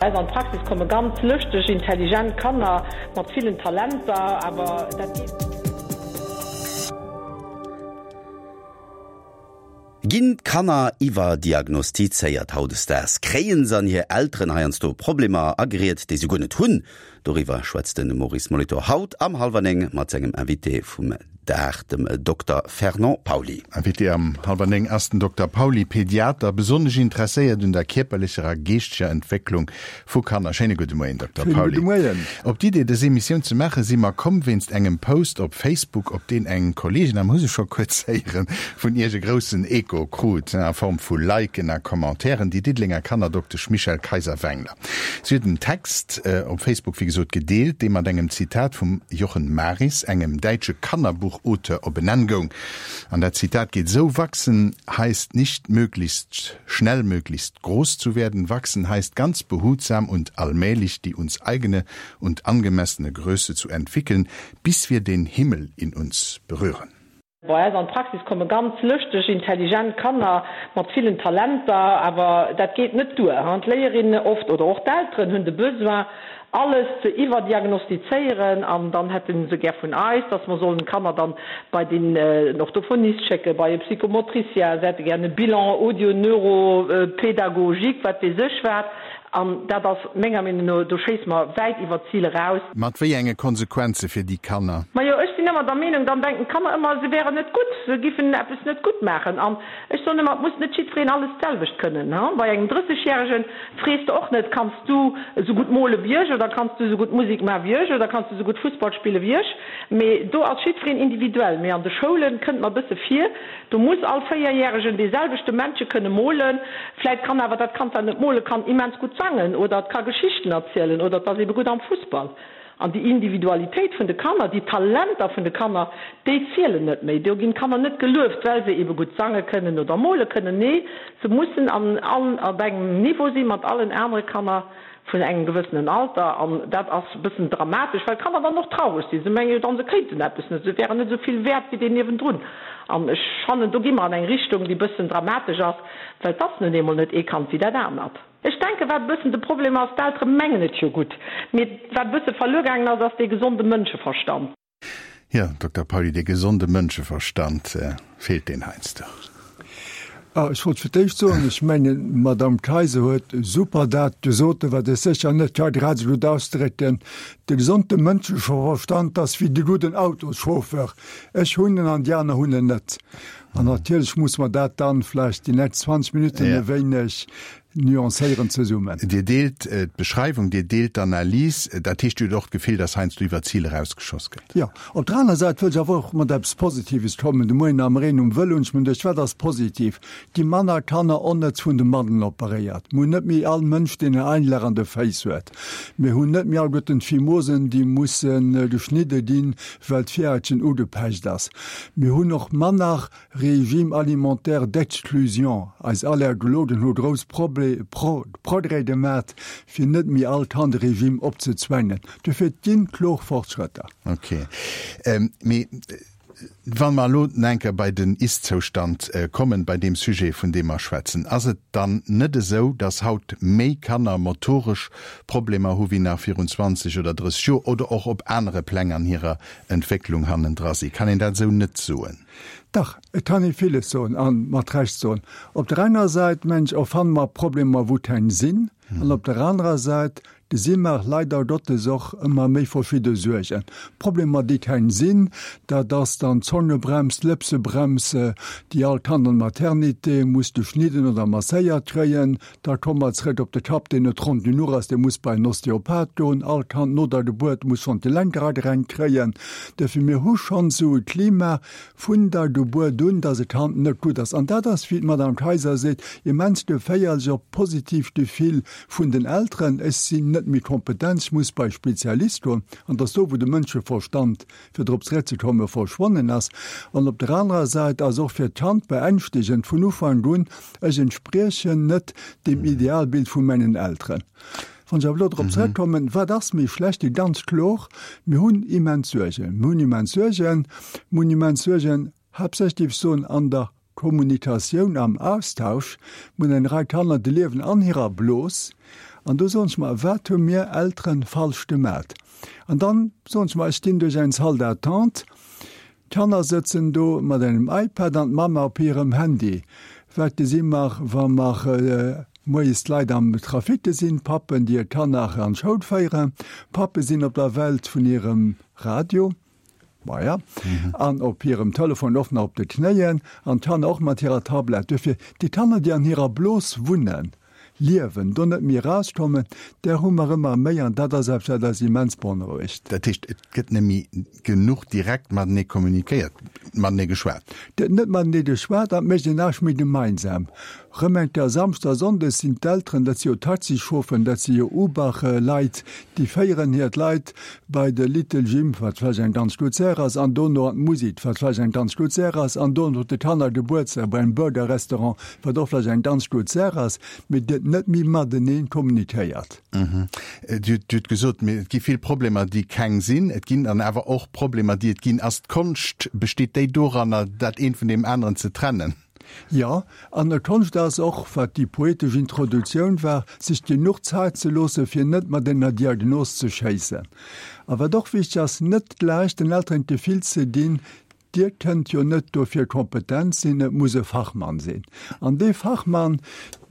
Eis an d'Praxis komme ganz lëschteg, intelligent Kanner mat villen Talenter, awer dat geet. Ginn d'Kanner iwwerdiagnostizéiert hautdesdaags? Kréien se an hir Elteren heiansdo Problemer ageriet, déi se guer net hunn? Doriwwer schwätzt de Maurice Molitor haut am Hallwer 9 mat sengem Invité vum Dag, dem Dokter Fernand Pauly. Invité am Hallwer 9 ass den Dokter Pauly, Pediater, besonnesch interesséiert un der kierperlecher a geeschteger Entwécklung vu Kanner. Schéine gudde Moien, Dokter Schéine Pauly. gudde Moien. Op d'Idee, dës Emissioun ze maachen, si mer komm wéinst engem Post op Facebook, op deen eng Kolleegin, a mer hu se scho kuerz héieren, vun Iech e groussen Echo krut, a Form vu Liken a Commentairen, déi Diddelenger Kannerdoktesch Michèle Kayser-Wengler. Si huet en Text op Facebook wéi gesot gedeelt, dee mat engem Zitat vum Jochen Maris, engem däitsche Kannerbuchauteur, op en Enn goung. An dat Zitat geet esou, Wachsen heißt nicht möglichst schnell möglichst groß zu werden, wachsen heißt ganz behutsam und allmählich die uns eigene und angemessene Größe zu entwickeln, bis wir den Himmel in uns berühren. Bei eis an d'Praxis komme ganz lëschteg, intelligent Kanner mat villen Talenter, awer dat geet net duer. D'Léierinne oft oder och d'Elteren hunn de Besoin, alles ze iwwerdiagnostizéieren an dann hätte se gär vun eis, dass mer sollen d'Kanner dann bei den Orthophonist schécken, bei e Psychomotricien, se hätte gär e Bilan audio-neuro-pédagogique, wat weess ech wat. An dat ass menger Meenung no, do schéisse mer wäit iwwer d'Zil eraus. Mat wéi enge Konsequenze fir déi Kanner? Majo, ech sinn ëmmer der Meenung, dann denken d'Kanner ëmmer, se wären net gutt, se giffen eppes net gutt maachen. An ech soen ëmmer, et muss net jiddwereen alles d'selwecht kënnen. Bei engem Drëssegjäregen frees de och net, Kanns du esou gutt mole wéi ech oder kanns du esou gutt Musek maache wéi ech oder kanns du esou gutt Fussball spille wéi ech? Mee do ass jiddwereen individuell. Mee an de Schoule kënnt mer e bësse vir, Do muss all Véierjäregen dee selwechte Männche kënne molen. Vläit kann awer dat Kand, wat net mole kann, immens gutt sangen oder et ka Geschichten erzielen oder et ass ebe gutt am Fussball. An déi Individualitéit vun de Kanner, déi Talenter vun de Kanner, déi zielen net méi. Do ginn d'Kanner net gelueft, well se ebe gutt sange kënnen oder mole kënnen. Nee, se mussen an op engem Niveau si mat allen anere Kanner. vun engem gewëssenen Alter, an dat ass e bëssen dramatesch, well d'Kanner dann och traureg sinn, se menge jo dann, se kéinten eppes net, se wären net esou vill wäert wéi deen niewendrun. An ech fannen, do gi mer an eng Richtung, déi e bëssen dramatesch ass, well et ass nun eemol net ee Kand wéi dat anert. Ech denken, wat e bëssen de Problem ass, d'Eltere mengen et jo gutt, mee wat e bësse verluer gaangen ass, ass dee gesonde Mënscheverstand. Jo, Dokter Pauly, dee gesonde Mënscheverstand, feelt deen heiansdo? Ah, ech wollt fir d'éischt soen, ech mengen, d'Madame Kayser huet super dat gesot, wat ech sécher net ka grad esou gutt ausdrécken, De gesonde Mënscheverstand ass wéi de gudden Autoschauffeur, ech hunn en an déi aner hunn en net. An natierlech muss mer dat dann vläicht déi nächst 20 Minutten e wéineg nuancéieren zesummen. Dir deelt d'Beschreiwung, Dir deelt d'Analys. Dat heescht, Dir hutt och d'Gefill, datt heiansdo iwwer d'Zil erausgeschoss gëtt? Jo. Op der aner Säit wëll ech awer och mat eppes Positives kommen. De Moien am Reen um Vëlo hunn ech mir geduecht, wat ass positiv? Gi manner Kanner onnëtz vun de Madden operéiert. Mir hunn net méi all Mënsch, deen en Einlach an de Féiss huet. Mir hunn net méi alleguerten d'Phimosen, déi musse geschnidde ginn, well d'Virhaitchen ugepecht ass. Mir hunn och manner Régime alimentaire d'exclusion, eis Allergologen hu grouss Progrès gemat, fir net méi all Kand e Régime opzezwängen. Dofir, et ginn kloer Fortschrëtter. Ok. Mee wa mer elo nach eng Kéier bei den Ist-Zoustand kommen, bei deem Sujet, vun deem mer schwätzen, ass et dann net esou, datt haut méi Kanner motoresch Problemer hu wéi nach virun 20 oder 30 Joer oder och op anere Pläng an hirer Entwécklung hannendra sinn? Kann een dat esou net soen? Dach, et kann ee villes soen a mat Recht soen. Op der enger Säit, mengen ech, erfanne mer Problemer, wou keng sinn, an op der anerer Säit gesi mer leider Gottes och ëmmer méi verschidde Suergen. Problemer, déi keng sinn, dat ass dann d'Zongebrems, d'Lëpsebrems, déi all Kand an Maternité muss geschnidden oder masséiert kréien. Da komme mer zrëck op de Kapp, deen net ronn genuch ass, dee muss bei en Osteopath goen. All Kand no der Gebuert muss schonn d'Gelenker agerenkt kréien. Duerfir, mir hu schonn esou e Klima vun der Gebuert un, dass e Kand net gutt ass. An dat ass, wéi d'Madame Kayser seet, immens geféierlech och d'positiivt Gefill vun den Elteren, Ech sinn net méi kompetent, ech muss bei e Spezialist goen. An dass do, wou de Mënscheverstand fir drop zeréckzekommen, verschwonnen ass. An op der anerer Säit ass och fir d'Kand beängschtegend vun Ufank un, Ech entspriechen net deem Idealbild vu mengen Elteren. Wann ech awer elo drop zeréckkommen, wat ass méi schlecht? Déi ganz kloer, mir hunn immens Suergen. Mir hunn immens Suergen, mir hunn immens Suergen, haaptsächlech, géif ech soen, an der Kommunikatioun, am Austausch. Mir hunn eng Rei Kanner, déi liewen an hirer Blos. An do soen ech mer, wat hu mir Elteren falsch gemat? An dann soen ech mer, ech ginn duerch eng Salle d'attente, d'Kanner sëtzen do mat engem iPad an d'Mamma op hirem Handy. Wat gesi mer, wa mer moies d'Leit am Trafic gesinn? Pappen, déi hir Kanner an d'Schoul féieren, Pappe sinn op der Welt vun hirem Radio, maja, an op hirem Telefon och nach op de Knéien, an d'Kanner och mat hirer Tablett. Duerfir, déi Kanner, déi an hirer Blos wunnen, liewen, do net méi erauskommen, där hu mer ëmmer méi an dat ass eppes, wat eis immens beonrouegt. Dat heescht, et gëtt net méi genuch direkt matenee kommunikéiert, matenee geschwat? Et gëtt net matenee geschwat an et mécht een näischt méi gemeinsam. Rëm eng Kéier Samschdes a Sonndes sinn d'Elteren, dat si jo Taxichaufferen, dat si jo Uber-Leit, déi féieren hir d'Leit bei de Little Gym, wat vläicht eng ganz gutt Saach ass, an dono an d'Musik, wat vläicht eng ganz gutt Saach ass, an dono de Kannergebuertsdag bei engem Burger-Restaurant, wat och vläicht eng ganz gutt Saach ass, mee et gëtt net méi matenee kommunikéiert. Dir hutt gesot, et gi vill Problemer, déi keng sinn. Et ginn dann awer och Problemer, déi et ginn. Ass d'Konscht, besteet déi doranner, dat eent vun deem aneren ze trennen? Jo, an d'Konscht ass och, wat déi poetesch Introduktioun war, sech genuch Zäit ze loosse fir net mat enger Diagnos ze schéissen. A wat och wichteg ass, net gläich den Elteren d'Gefill ze ginn, Dir kënnt jo net dofir kompetent sinn, et muss e Fachmann sinn. An dee Fachmann,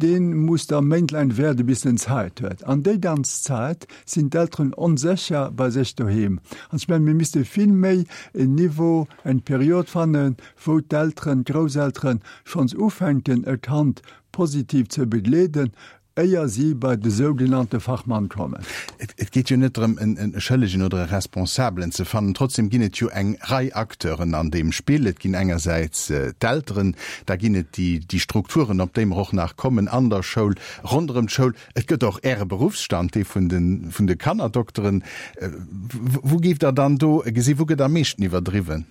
dee muss da méintlaang waarde bis en Zäit huet. An déi ganz Zäit sinn d'Elteren onsécher bei sech doheem. An ech mengen, mir misste vill méi en Niveau, eng Period fannen, wou d'Elteren, d'Grousselteren schonns ufänken e Kand positiv ze begleeden, éier si bei de sougenannte Fachmann kommen. Et geet jo net drëm, e Schëllegen oder e Responsabelen ze fannen. Trotzdem ginn et jo eng Rei Acteuren an deem Spill. Et ginn engersäits d'Elteren, da ginn et déi Strukturen, op déi mer och nach kommen, an der Schoul, ronderëm d'Schoul. Et gëtt och Äre Beruffsstand, dee vun de Kannerdokteren. Wou géift Der dann do gesinn, wou gëtt am meeschten iwwerdriwwen?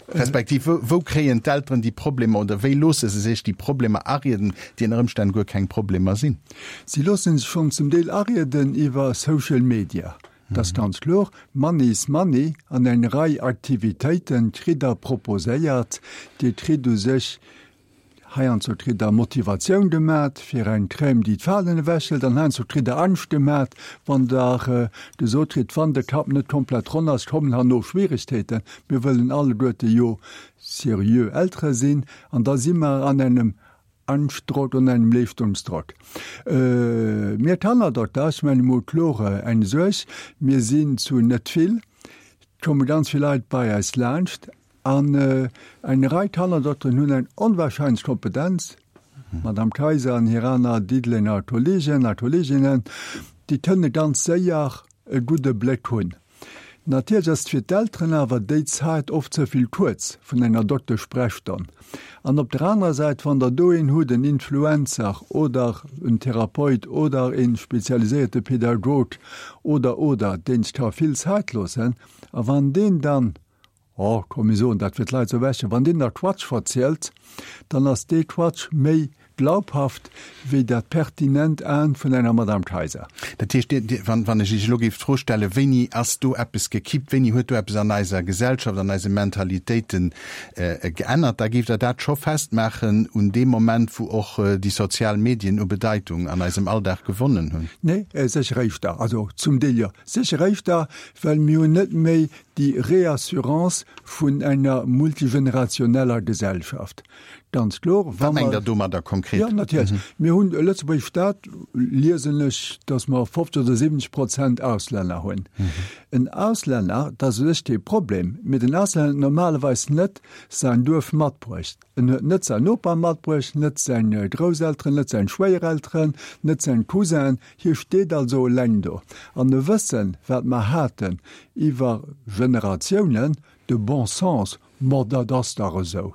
Respektiv, wou kréien d'Elteren déi Problemer oder wéi loosse se sech déi Problemer arieden, déi ënner Ëmstänn guer keng Problemer sinn? Si loosse sech schonn zum Deel arieden iwwer Social Media, dat ass ganz kloer. Money is money an eng Rei Aktivitéite kritt Der proposéiert. Dir kritt u sech Heiansdo kritt der Motivatioun gemat fir eng Crème déi d'Falen ewechhëlt an heiansdo kritt der Angscht gemat wann der gesot kritt, wann de Kapp net komplett ronn ass, kommen herno Schwierigkeeten. Mir wëllen alleguerte jo seriö Eltere sinn an da si mer an engem Angschtdrock an engem Leeschtungsdrock. Mir Kannerdokter, ech mengen emol kloer eng Suerg, mir sinn zu net vill, et komme ganz vill Leit bei eis laanscht, An eng Rei Kannerdokteren hunn eng onwahrscheinlech Kompetenz, d'Madame Kayser an hir aner Diddelenger Kollegen a Kolleginnen, déi kënne ganz séier e gudde Bléck hunn. Natierlech ass et fir d'Elteren awer déi Zäit oft ze vill kuerz vun enger Dokteschsprechstonn. An op der anerer Säit, wann Der do een hutt, en Influencer oder en Therapeut oder e spezialiséierte Pädagog oder, oder, deen sech ka vill Zäit loossen, a wann deen dann, Oh, komm mir soen dat fir d'Leit ze erwächen, wann deen da Quatsch verzielt, dann ass dee Quatsch méi glaubhaft wéi dat pertinent Aen vun enger Madame Kayser. Dat heescht, Dir, Dir, wann, wann ech Iech elo géif d'Fro stellen, wéini ass do eppes gekippt, wéini huet do eppes an eiser Gesellschaft, an eise Mentalitéiten geännert, da géift Der dat scho festmaachen un deem Moment, wou och déi sozial Medien u Bedeitung an eisem Alldag gewonnen hunn? Nee, sécher éischter, also zum Deel jo, sécher éischter, well mir hunn net méi déi Reassurance vun enger multigenerationeller Gesellschaft. Ganz kloer, wa mer. Wat mengt Der domadder konkret? Jo, natierlech. Mir hunn e Lëtzebuerg Staat, liesen ech, datt mer 50 oder 70 Prozent Auslänner hunn. En Auslänner, dat ass u sech kee Problem, mee den Auslänner huet normalerweis net säin Duerf matbruecht. En huet net säin Noper matbruecht, net seng Grousselteren, net seng Schwéierelteren, net seng Cousinen. Hie steet also eleng do. An e Wëssen, wat mer haten iwwer Generatiounen, de bon sens, ma dat ass dach esou,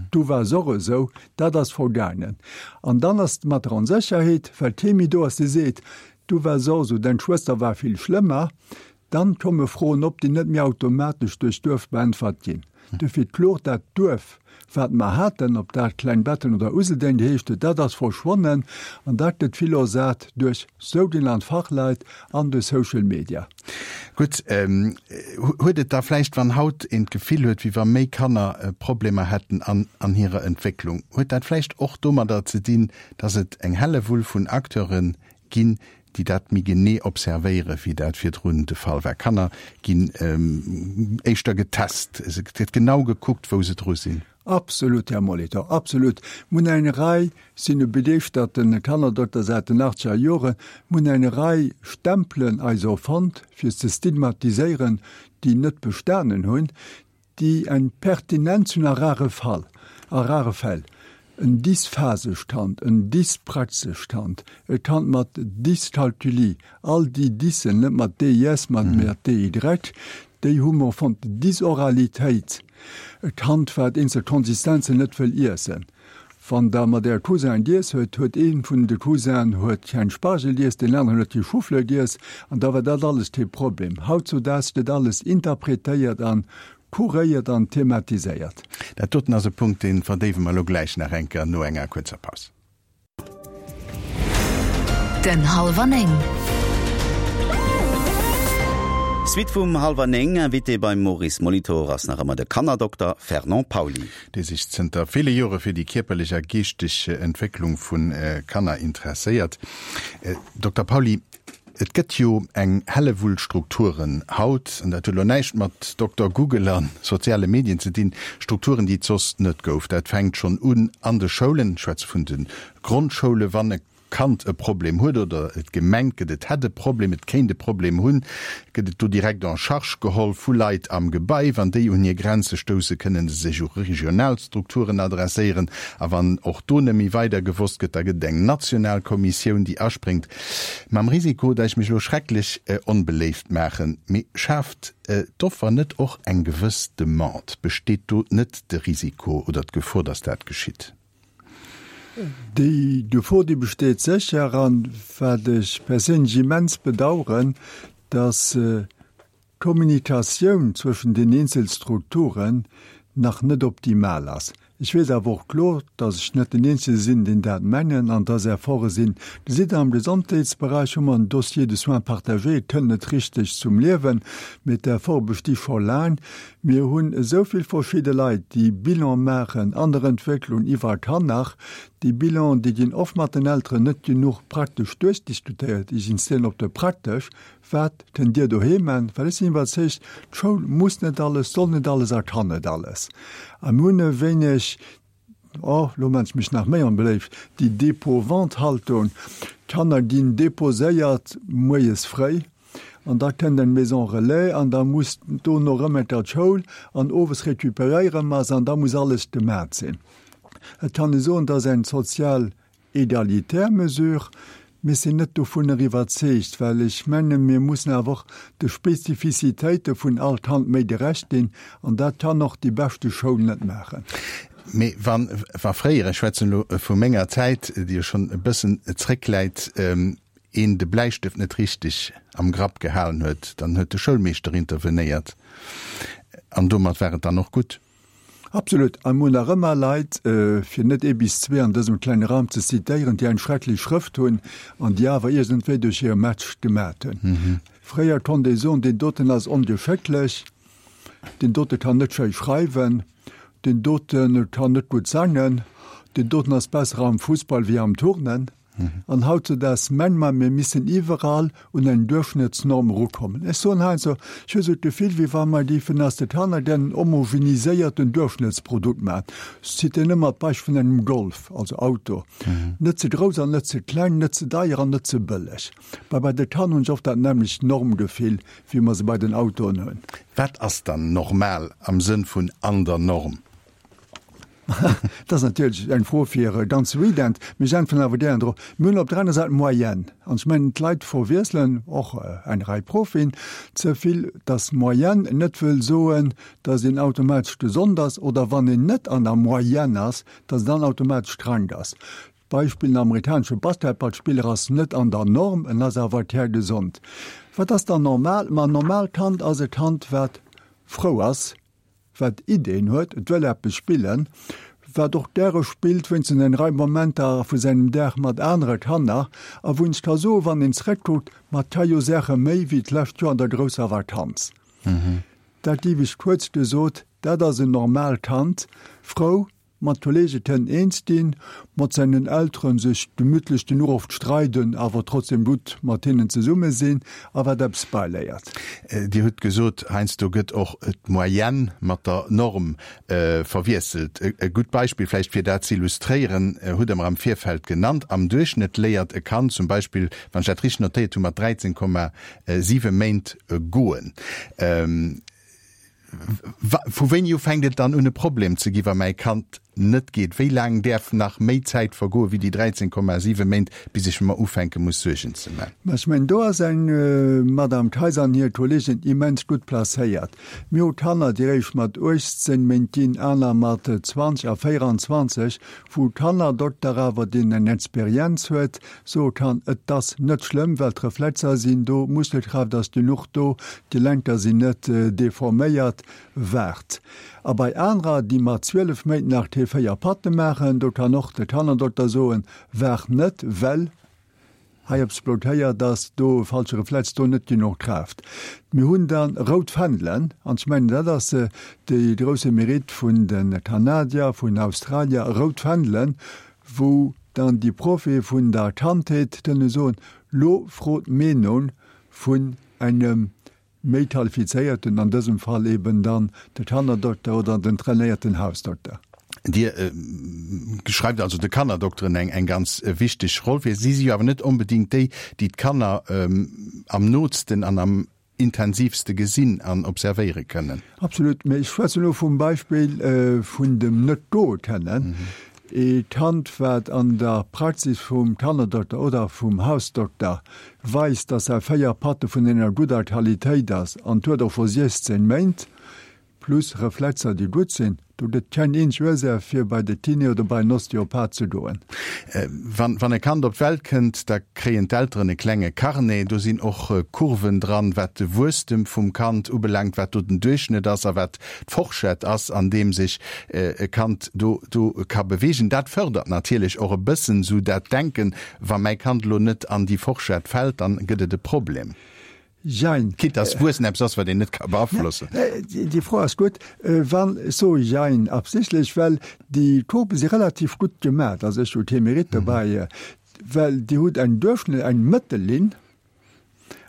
du waars och esou, dat ass vergaangen. An dann ass et mat der Onsécherheet, well kee méi do ass, dee seet, du waars och esou, deng Schwëster war vill schlëmmer. Dann komme Froen op, déi net méi automatesch duerch d'Duerf beäntwert ginn. Dofir d'Klo, dat Duerf, wat mer haten, ob dat Klengbetten oder Useldeng geheescht huet, dat ass verschwonnen an dat gëtt vill ersat duerch sougenannt Fachleit an duerch Social Media. Gutt, huet et da vläicht, wann haut een d'Gefill huet, wéi wa méi Kanner Problemer hätten an hirer Entwécklung, huet dat vläicht och domadder ze dinn, dass et eng Hellewull vun Acteure. ginn, déi dat méi genee observéiere wéi dat virdrun de Fall war. Kanner ginn éischter getest, et gëtt genau gekuckt, wou se dru sinn. Absolut, Här Molitor, absolut. Mir hunn eng Rei, sinn e begeeschterte Kannerdokter säit den achtzeger Joren, mir hunn eng Rei Stempelen eis erfonnt, fir ze stigmatiséieren, déi net bestanen hunn, déi eng Pertinenz hunn a rare Fall, a rare Fäll, en dysphasescht Kand, en dyspraxescht Kand, e Kand mat Dyskalkulie, all déi Dyssen, net mat DYS, mä mat DY, déi hu mer fonnt, Dysoralitéit, e Kand, wat eenzel Konsistenzen net wëll iessen. Wann Der mat Äre Cousinen giess huet, huet ee vun de Cousinen huet keng Spargel giess, deen aneren huet kee Choufleur giess, an da war dat alles kee Problem. Hautzudaags gëtt alles interpretéiert a kuréiert an thematiséiert. Dat doten ass e Punkt, dee verdéiwe mer elo gläich nach eng Kéier no enger kuerzer Paus. Den Hallwer 9. Suite vum Hallwer 9, Invité beim Maurice Molitor ass nach ëmmer de Kannerdokter Fernand Pauly. Dee sech zënter ville Jore fir déi kierperlech a geeschteg Entwécklung vu Kanner interesséiert. Dokter Pauly, et gëtt jo eng Hellewull Strukturen haut, an dat huet elo näischt mat Dokter Google a soziale Medien ze dinn, Strukturen, déi et soss net gouf. Dat fänkt schonn un an de Schoulen, ech schwätze vun de Grondschoule, wann e Kand e Problem huet oder et gemengt gëtt, et hätt e Problem, et kéint e Problem hunn, gëtt et do direkt en charge geholl vu Leit am Gebai. Wann déi un hir Grenze stousse, kënne se sech u regional Strukturen adresséieren. A wann och do net méi weider gewosst gëtt, da gëtt et eng national Kommissioun, déi aspréngt. Mam Risiko, datt ech mech elo schrecklech onbeléift maachen, mee schaaft d'Offer net och eng gewëss Demande? Besteet do net de Risiko oder d'Gefor, datt dat geschitt? Déi Gefor, déi besteet sécher. An wat ech perséinlech immens bedauern, dass d'Kommunikatioun zwëschen den eenzel Strukturen nach net optimal ass. Ech weess awer och kloer, dass ech net den Eenzege sinn, deen dat mengen an dass Efforte sinn. Dir sidd, am Gesondheetsberäich hu mer en Dossier de soins partagé, et kënnt net richteg zum Liewen, mee d'Efforte besti scho laang. Mir hunn esou vill verschidde Leit, déi Bilan maachen an der Entwécklung iwwer Kanner. Déi Bilanen, déi ginn oft mat den Elteren net genuch praktesch duerchdiskutéiert. Ech insistéieren op de praktesch. Wat kënnt Dir doheem man? Well ech sinn iwwerzeegt, d'Schoul muss net alles, soll net alles a kann net alles. A mir hunn e wéineg, oh, lo man ech mech nach méi onbeléift, déi Dépôt-vente-Haltung. D'Kanner ginn déposéiert moies fréi. An da kënnt eng Maison relais an da muss dono erëm eng Kéier d'Schoul an owes recuperéiere mer se an da muss alles gemat sinn. Et kann ee soen, et ass eng sozial egalitär Mesure, mee ech sinn net dovunner iwwerzeegt, well ech mengen, mir mussen awer och de Spezifizitéite vun all Kand méi gerecht ginn an dat kann och déi beschte Schoul net maachen. Mee wann, wa fréier, ech schwätzen elo vu menger Zäit, déi jo schonn e bëssen zréckläit, een de Bläistëft net richteg am Grapp gehalen huet, dann huet de Schoulmeeschter intervenéiert an domat war et dann och gutt. Absolut. A mir hunn nach ëmmer Leit, fir net ee bis zwee an dësem klenge Raum ze zitéieren, déi eng schrecklech Schrëft hunn an déi awer iergendwéi duerch hire Match gemat hunn. Fréier konnt ee soen, deen doten ass ongeschécklech, deen dote kann net schéi schreiwen, deen dote kann net gutt sangen, deen doten ass besser am Fussball wéi am Turnen. An hautzedaags menge mer, mir missen iwwerall un eng Duerchschnëttsnorm erukommen. Ech soen heiansdo, ech hu sou d'Gefill, wéi wa mer géifen aus de Kanner gären en homogeniséierten Duerchschnëttsprodukt maachen. Ech zitieren ëmmer d'Beispill vun engem Golf, also Auto, net ze grouss an net ze kleng, net ze deier an net ze bëlleg. Mä bei de Kanner hunn ech oft dat nämmlecht Normgefill, wéi mer se bei den Autoen hunn. Wat ass dann normal am Sënn vun an der Norm? Dat ass natierlech eng Fro fir e ganze Weekend, mee ech äntweren awer gären drop. Mir hunn op der aner Säit d'Moyenne. An ech mengen, d'Leit verwiesselen, och eng Rei Profien, ze vill, dass Moyenne net wëll soen, dass een automatesch gesond ass, oder wann een net an der Moyenne ass, dass een dann automatesch krank ass. Beispill, En amerikanesche Basketballspiller ass net an der Norm, en ass awer kärgesond. Wat ass dann normal? Ma en normaalt Kand ass e Kand, wat frou ass, wat Ideen huet, et wëll eppes spillen, wat och gäre spillt, wéinstens eng Rei Momenter vu sengem Dag mat anere Kanner, a wou een sech ka soen, wann een zrëckkuckt, ma et ka jo Saache méi wéi d'lescht Joer an der grousser Vakanz. Dat géif ech kuerz gesot, dat ass en normaalt Kand, frou. Mat Kollege kënnen eens ginn, mat seinen Elteren sech gemütlech genuch oft streiden, awer trotzdem gutt mat hinnen zesumme sinn a wat eppes beiléiert. Dir hutt gesot, heiansdo gëtt och d'Moyenne mat der Norm verwiesselt. E gutt Beispill vläicht fir dat ze illustréieren, hutt Der mer am Virfeld genannt, Am Duerchschnëtt léiert e Kand zum Beispill, wann ech dat richteg notéiert hunn, mat 13,7 Méint goen. Vu wéini u fänkt et dann un e Problem ze gi wa mäi Kand net geet? Wéi laang däerf nach méi Zäit vergoe wéi déi 13,7 Méint, bis ech mer ufänke muss Suergen ze man? Mä ech mengen, do ass eng Madame Kayser an hir Kolleegen immens gutt placéiert. Mir hu Kanner, déi eréischt mat 18 Méint ginn, aner mat 20 a 24, wou Kannerdokter awer, deen eng Experienz huet, soe kann, et ass net schlëmm, well d'Reflexer sinn do, d'Muskelkraaft ass genuch do, d'Gelenker sinn net deforméiert, waart. A bei anerer, déi mat 12 Méint nach kee 4 Patte maachen, do kann och de Kannerdokter soen, waart net, well hei eppes blockéiert ass, do e falsche Reflex, do net genuch Kraaft. Mir hunn da rout Fändelen, an ech mengen, dat ass de grousse Mérite vun de Kanadier, vun Australier, rout Fändelen, wou dann déi Proffe vun der Kandheet kënne soen, lo frot d'Meenung vun engem méi qualifizéierten, an dësem Fall eben dann de Kannerdokter oder den trainéierten Hausdokter. Dir schreift also de Kannerdokteren eng eng ganz wichteg Roll fir. Si si jo awer net onbedéngt déi, déi d'Kanner am nootsten an am intensivste gesinn an observéiere kënnen. Absolut, mä ech schwätzen elo vum Beispill vun dem net goe kënnen. E Kand, wat an der Praxis vum Kannerdokter oder vum Hausdokter weist, dass säi 4 Patte vun enger gudder Qualitéit ass an huet och scho 16 Méint, plus Reflexer déi gutt sinn, do gëtt keng eenzeg Ursaach fir bei de Kiné oder bei en Osteopath ze goen. Wann wann e Kand op d'Welt kënnt, da kréien d'Elteren e klenge Carnet, do sinn och Kurven dran, wat de Wuesstem vum Kand ubelaangt, wat do den Duerchschnëtt ass a wat d'Forschett ass, an deem sech e Kand do do ka beweegen. Dat fërdert natierlech och e bëssen esou dat Denken, wa mäi Kand elo net an déi Forschett fält, dann gëtt et e Problem. Jein. Quitte dass Wuessen eppes ass, wat een net ka beaflossen. Déi Fro ass gutt. Wann, ech soe jein absichtlech, well déi Courbe si relativ gutt gemat, also ech hu kee Mérite dobäi, well Dir hutt eng Duerchschnëtt, eng Mëttellinn,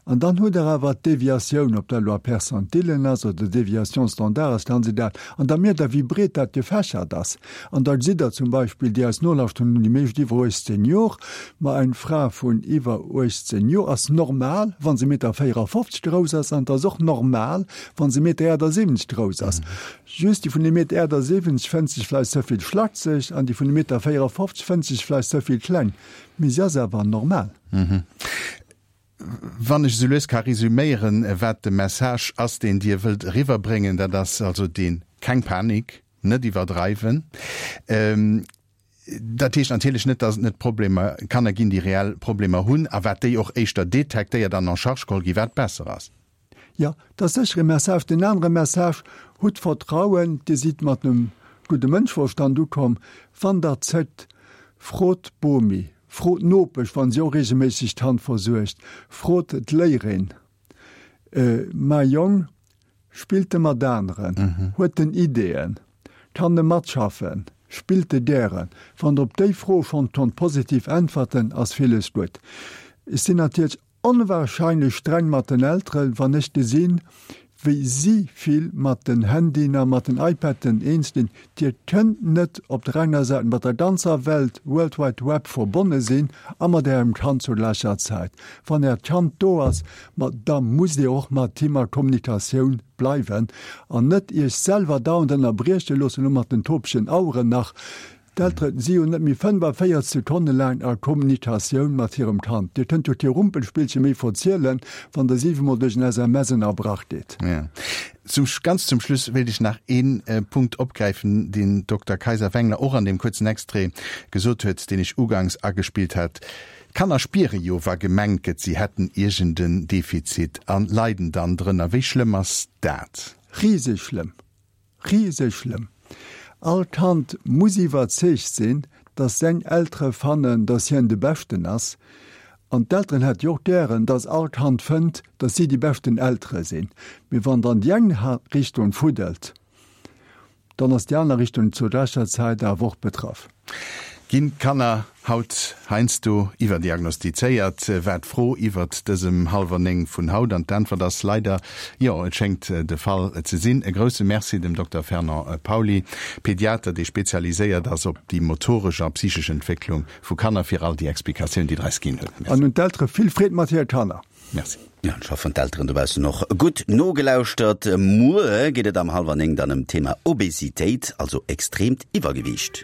an dann hutt Der awer d'Deviatioun, ob dat elo a Percentilen ass oder Déviation standard ass, kann se dat, an da mierkt Der, wéi breet dat gefächert ass. An da gesitt Der zum Beispill, déi eis nolauschteren hunn déi meescht iwwer 18 Jor, ma eng Fra vun iwwer 18 Jor ass normal, wa se Meter 54 grouss ass, an et ass och normal, wa se Meter 78 grouss ass. Just déi vun ee Meter 78 fënnt sech vläicht ze vill schlakseg an déi vun ee Meter 54 fënnt sech vläicht ze vill kleng, mee si ass awer normal. Wann ech esou lues ka resüméieren, wat de Message ass, deen Dir wëllt eriwwerbréngen, dat ass also deen, Keng Panik, net iwwerdreiwen. Dat heescht natierlech net, datt et net Problemer, Kanner ginn, déi reell Problemer hunn a wat déi och éischter detektéiert an en charge geholl ginn, wat besser ass. Jo, dat ass sécher e Message. Den anere Message, Hutt Vertrauen, Dir sidd mat engem gudde Mënschverstand ukomm. Wann Der zéckt, frot d'Bomi, frot d'Nopesch, wa si och reegelméisseg d'Hand versuergt, frot d'Léierin. Mäi Jong spillt e mat aneren, huet en Ideeën, kann e matschaffen, spillt e gären? Wann Der op déi Fro schonn konnt positiv äntwerten, ass villes gutt. Ech sinn natierlech Onwahrscheinlech streng mat den Elteren, wann ech gesinn, wéi si vill mat den Handyen a mat den iPaden eens ginn. Dir kënnt net op der enger Säit mat der ganzer Welt, World Wide Web, verbonne sinn a mat ärem Kand zur gläicher Zäit. Wann äert Kand do ass, ma da musst dir och mat him a Kommunikatioun bleiwen an net iech selwer dauernd ënnerbrieche loossen, elo mat den topegen Aueren nach. D'Eltere si jo net méi 45 Sekonne laang a Kommunikatioun mat hirem Kand. Dir kënnt jo kee Rumpelspillche méi verzielen, wann Der siwemol duerch en SMS ënnerbrach gitt. Zum, ganz zum Schluss wéilt ech nach ee Punkt opgräifen, deen d'Dokter Kayser-Wengler och an deem kuerzen Extrait gesot huet, deen ech ugangs agespillt hat. D'Kanner spiere jo, wa gemengt gëtt, si hätten iergend en Defizit a leiden dann drënner. Wéi schlëmm ass dat? Riseg schlëmm. Riseg schlëmm. All Kand muss iwwerzeegt sinn, dass seng Eltere fannen, dass hien de Beschten ass. An d'Elteren hätte jo och gären, dass all Kand fënnt, dass si déi beschten Eltere sinn. Mee wann dann déi eng Richtung fuddelt, Dann ass déi aner Richtung zur gläicher Zäit awer och betraff. Ginn d'Kanner haut heiansdo iwwerdiagnostizéiert, war d'Fro iwwert dësem Hallwer 9 vun haut. An d'Äntwert ass leider jo, et schéngt de Fall ze sinn. E grousse Merci dem Dokter Fernand Pauly, Pediater, dee spezialiséiert ass op déi motoresch a psychesch Entwécklung vu Kanner, fir all déi Explikatioun, déi Der eis ginn hutt. Merci. An un d'Eltere vill Freed mat hire Kanner. Merci. Ja, ech hoffen d'Elteren dobaussen och gutt nogelauschtert. Muer geet et am hallwer 9 dann ëm d'Thema Obesitéit, also extreemt Iwwergewiicht.